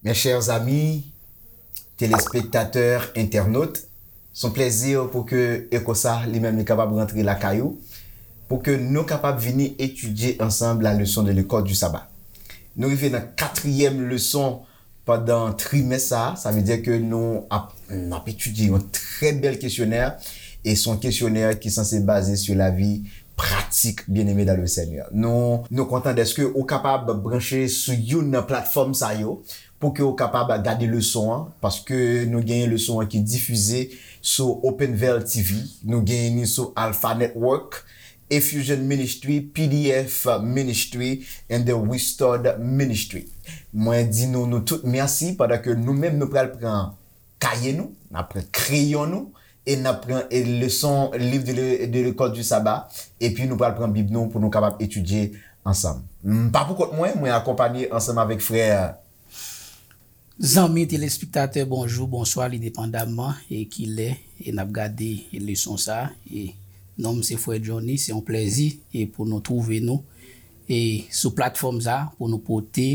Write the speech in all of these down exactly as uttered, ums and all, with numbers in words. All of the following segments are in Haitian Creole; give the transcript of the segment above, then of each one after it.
Mes chers amis, téléspectateurs, internautes, se yon plèzi pou ke Eko sa li menm li kapab rantre lakay ou, pou ke nou kapab vini etidye ansanm la leçon de l'école du sabbat. Nou rive nan katriyèm leson pandan trimès sa a, sa vle di ke nou ap, n ap etidye yon trè bèl kesyonè, e se yon kesyonè ki sanse baze sou lavi pratik, bien-aimé dans le Seigneur. Nou, nou kontan dèske ou kapab branche sou youn nan platfòm sa yo, pou ke ou kapab gade leson an, paske nou genyen leson an ki difize sou Open Veil T V, nou genyen li sou Alpha Network, Effusion Ministry, P D F Ministry, and the Restored Ministry. Mwen di nou, nou tout mèsi, pandan ke nou menm nou pral pran kaye nou, n ap pran kreyon nou, e n ap pran, e, leson, liv de, le- de l'école du sabbat, epi nou pral pran Bib nou pou nou kapab etidye ansanm. M pa pou kont mwen, mwen akonpanye ansanm avèk frè Zanmi telespektatè, bonjou, bonswa, li depandamman e kilè e n ap gade leson sa a. E non m se Frè Johnny, se yon plèzi e pou nou twouve nou e sou platfòm sa a pou nou pote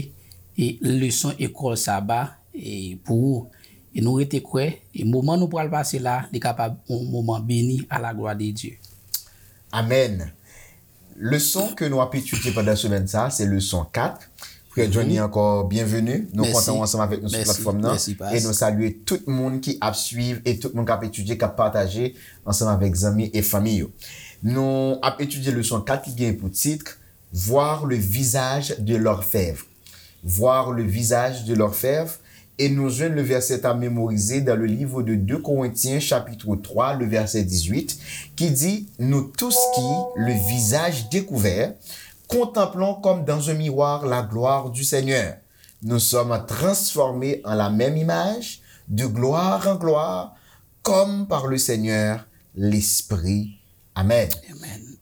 e leson ekòl saba e pou ou. E nou rete kwè e moman nou pral pase la, li kapab yon moman beni à la gloire de Dieu. Amèn. Leson ke nou ap etidye pandan semèn sa a, se leson kat. Frè Johnny, ankò, byenveni. Nou kontan w ansanm avèk nou sou platfòm nan. E nou salye tout moun ki ap swiv e tout moun k ap etidye, k ap pataje ansanm avèk zanmi e fanmi yo. Nou ap etidye leson kat ki gen pou tit Voir le visage de l'orfèvre. Voir le visage de l'orfèvre, et nous jwenn le verset à mémoriser dans le livre de deux Corinthiens chapitre trois, le verset dix-huit, qui dit, nous tous qui, le visage découvert, contemplons comme dans un miroir la gloire du Seigneur, nous sommes transformés en la même image, de gloire en gloire, comme par le Seigneur l'Esprit. Amèn.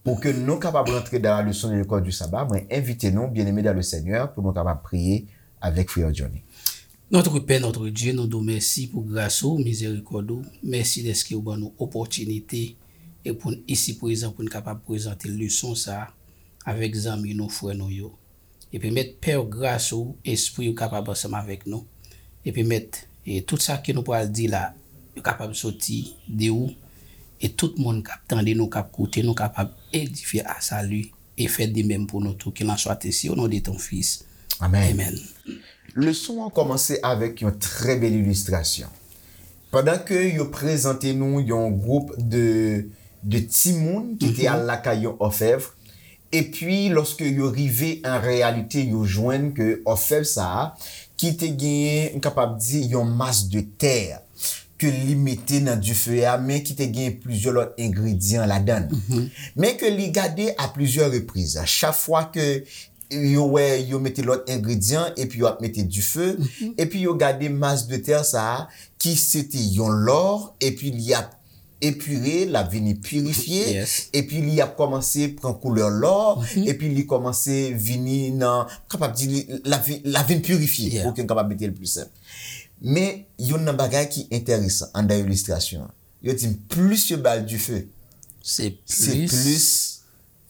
Pou ke nou kapab rantre dans la leçon de l'école du sabbat, mwen envite nou, bien-aimé dans le Seigneur, pou nou kapab priye avèk frè Johnny. Notre Père, notre Dieu, nou di w mèsi pou gras ou, mizerikòd ou. Mèsi dèske ou ban nou opòtinite e pou n isi prezan pou n kapab prezante leson sa a avèk zanmi nou, frè nou yo. Epi mèt pè w gras ou, espri w kapab ansanm avèk nou. Epi mèt, e tout sa ke nou pral di la, yo kapab soti de ou. E tout moun k ap tande nou, k ap koute nou, kapab edifye a sali e fè de menm pou nou tou. Qu'il en soit ainsi au nom de ton Fils. Amèn. Amèn. Leson an kòmanse avèk yon trè bèl ilistrasyon. Pandan ke yo prezante nou yon gwoup de, de timoun ki te al lakay yon òfèv, epi lòske yo rive an reyalite, yo jwenn ke òfèv sa a, ki te genyen, m kapab di, yon mas de tè, ke li mete nan dife a, men ki te gen plizyè lòt engredyan ladan l. Men ke li gade a plizyè repriz. Chak fwa ke yo wè yo mete lòt engredyan, epi yo ap mete dife, epi yo gade mas de tè sa a, ki se te yon lò, epi li ap epire, l ap vini pirifye, epi li ap kòmanse pran koulè lò, epi li kòmanse vini nan, kapab di, li, l ap vi- l ap vin pirifye, pou ke n kapab mete l pli senp. Men, youn nan bagay ki enteresan anndan ilistrasyon an, yo di m plis yo ba l dife, se plis,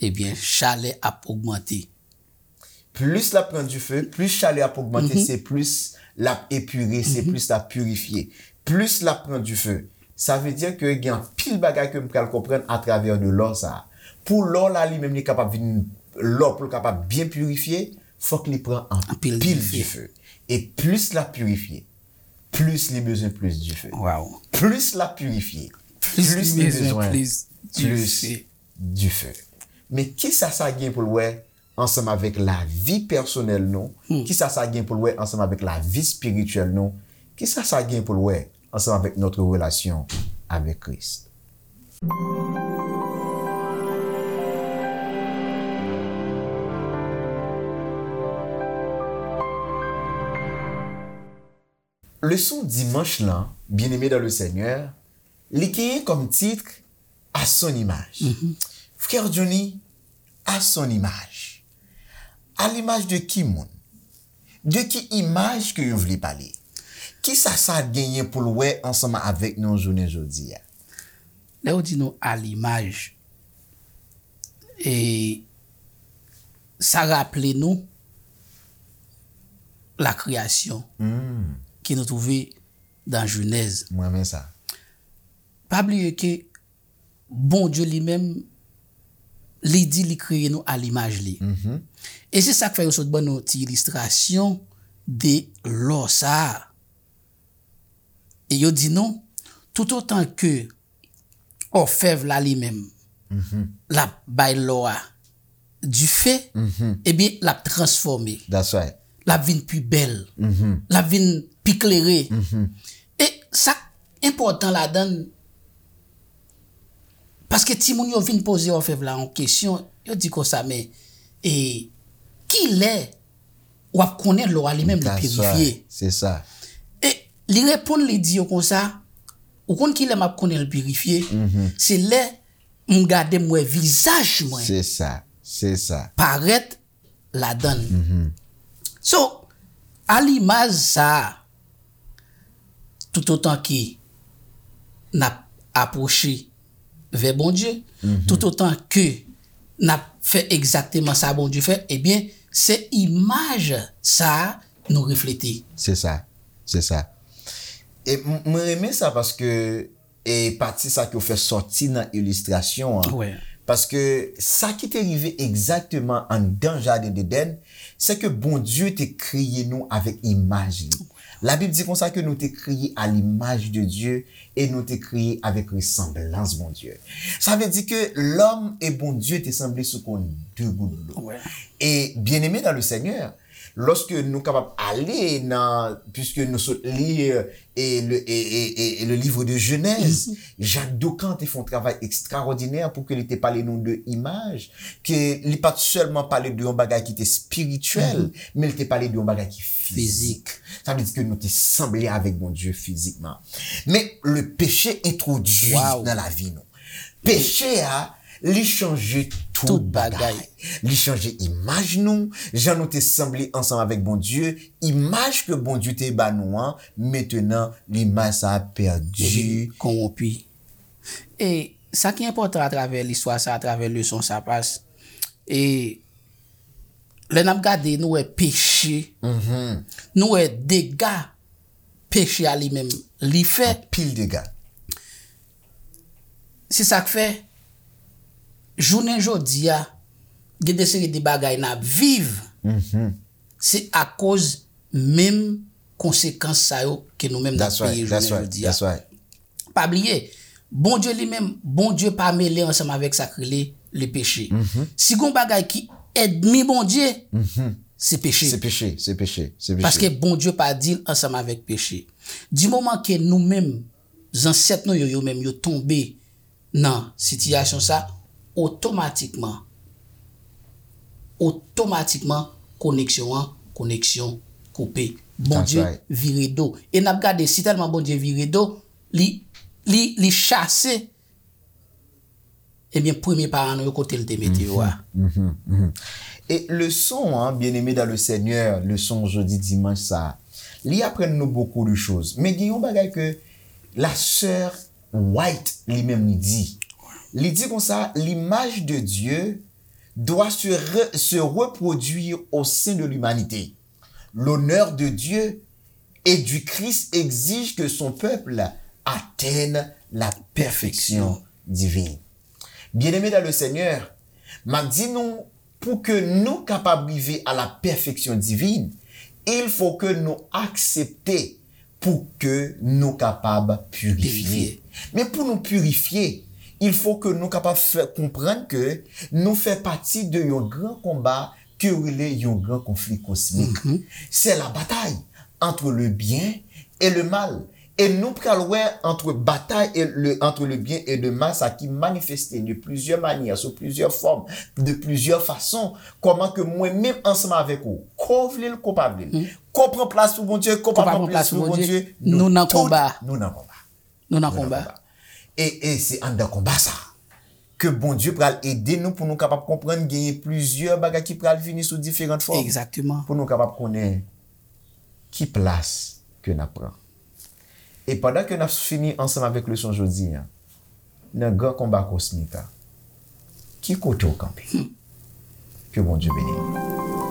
ebyen, chalè ap ogmante. Plis l ap pran dife, plis chalè ap ogmante, se plis l ap epire, se plis l ap pirifye. Plis l ap pran dife, sa vle di ke gen anpil bagay ke m pral konprann atravè de lò sa a. Pou lò la li menm li kapab vin lò, pou l kapab byen pirifye, fòk li pran anpil dife. E plis l ap pirifye, plis li bezwen plis dife. Plis l ap pirifye, plis li bezwen plis dife. Men kisa sa gen pou l wè ansanm avèk lavi pèsonèl nou? Kisa sa gen pou l wè ansanm avèk lavi espirityèl nou? Kisa sa gen pou l wè ansanm avèk notre relation avec Christ? Leson dimanch lan, bien-aimé dans le Seigneur, li genyen kòm tit À son image. Frè Johnny, à son image. À l'image de ki moun? De ki imaj ke yo vle pale? Kisa sa genyen pou l wè ansanm avèk nou jounen jodi a? Lè yo di nou à l'image, e sa raple nou la création Hmm. ke nou twouve nan Jenèz. Mwen renmen sa. Pa bliye ke Bondye li menm, li di li kreye nou a limaj li. Mhm. E se sa k fè yo sot ban nou ti ilistrasyon de lò sa a. E yo di nou, toutotan ke òfèv la li menm, Mhm. l ap bay lò a dife, Mhm. ebyen, l ap transfòme. That's right. L ap vin pi bèl. Mhm. L ap vin pi klere. Mhm. E sa k enpòtan ladan l, paske timoun yo vin poze òfèv la yon kesyon, yo di konsa, men, e, kilè w ap konnen lò a li menm li That's pirifye? right. Se sa. E li reponn, li di yo konsa, ou konn kilè m ap konnen l pirifye? Mhm. Se lè m gade, m wè vizaj mwen Se sa. Se sa. parèt ladan l. Mhm. So, a limaj sa a, toutotan ke n ap apwoche vè Bondye, Mhm. toutotan ke n ap fè egzakteman sa Bondye fè, ebyen, se imaj sa a nou reflete. Se sa. Se sa. E m- mwen renmen sa paske e pati sa ke w fè sòti nan ilistrasyon an. Wè. Paske sa ki te rive egzakteman anndan jaden Edenn, se ke Bondye te kreye nou avèk imaj li. Labib di konsa ke nou te kreye a limaj de Dye e nou te kreye avèk resanblans Bondye. Sa vle di ke lòm e Bondye te sanble sou konn de gout dlo. Wè. E bien-aimés dans le Seigneur, lòske nou kapab ale nan, puisque nou sot li e le, e, e, e, e le livre de Genèse, Jacques Docan te fè yon travay ekstraòdinè pou ke li te pale nou de imaj, ke li pa t sèlman pale de yon bagay ki te espirityèl, men li te pale de yon bagay ki fizik. Sa vle di ke nou te sanble avèk Bondye fizikman. Men le péché entwodui Wow. nan lavi nou. Peche a, li chanje tout Tout bagay. bagay. Li chanje imaj nou, jan nou te sanble ansanm avèk Bondye, imaj ke Bondye te ba nou an, mentenan, limaj sa a pèdi. Epi konwonpi. E sa ki enpòtan atravè listwa sa, atravè leson sa, pas, e lè n ap gade, nou wè peche, Mhm. nou wè dega peche a li menm li fè. Pil dega. Se sa k fè, jounen jodi a, gen de seri de bagay n ap viv, Mhm. se akoz menm konsekans sa yo ke nou menm n ap That's right. peye That's jounen right. jodi a. That's right. Pa bliye, Bondye li menm, Bondye pa mele ansanm avèk sa k rele le peche. Mhm. Si gon bagay ki ènmi Bondye, Mhm. se peche. Se peche, se peche, se peche. Paske Bondye pa dil ansanm avèk peche. Di moman ke nou menm, zansèt nou yo, yo menm, yo tonbe nan sitiyasyon sa, otomatikman, otomatikman, koneksyon an, koneksyon koupe. Bondye right. vire do. E n ap gade, si tèlman Bondye vire do, li, li, li chase, ebyen, premye paran nou yo, kote l te mete yo a. Mhm, mhm. E leson an, bien-aimés dans le Seigneur, leson jodi dimanch sa, li aprann nou beaucoup de choses. Men gen yon bagay ke la sœur White li menm li di. Li di konsa, l'image de Dieu doit se, re- se reproduire au sein de l'humanité. L'honneur de Dieu et du Christ exige que son peuple atteigne la perfection divine. Bien-aimés dans le Seigneur, m ap di nou, pou ke nou kapab rive a la pèfeksyon divin, il faut que nou aksepte pou ke nou kapab pirifye. Pirifye. Men pou nou pirifye, il faut que nou kapab fè konprann ke nou fè pati de yon gran konba ke yo rele yon gran konfli kosmik. C'est la bataille entre le bien et le mal. E nou pral wè entre bataille et le, entre le bien et le mal, sa ki manifeste de plusieurs manières, sous plusieurs formes, de plusieurs façons, kòman ke mwen menm ansanm avèk ou, ko vle l, ko pa vle l, ko pran plas pou Bondye, ko pa pran plas pou Bondye, nou nan konba. Nou nan konba. Nou nan Nou nan konba. Konba. E, e se anndan konba sa ke Bondye pral ede nou pou nou kapab konprann genyen plizyè bagay ki pral vini sou diferan fòm. Egzakteman. Pou nou kapab konnen ki plas ke n ap pran. E pandan ke n ap fini ansanm avèk leson jodi a, nan gran konba kosmik la, ki kote w kanpe? Ke Bondye beni nou.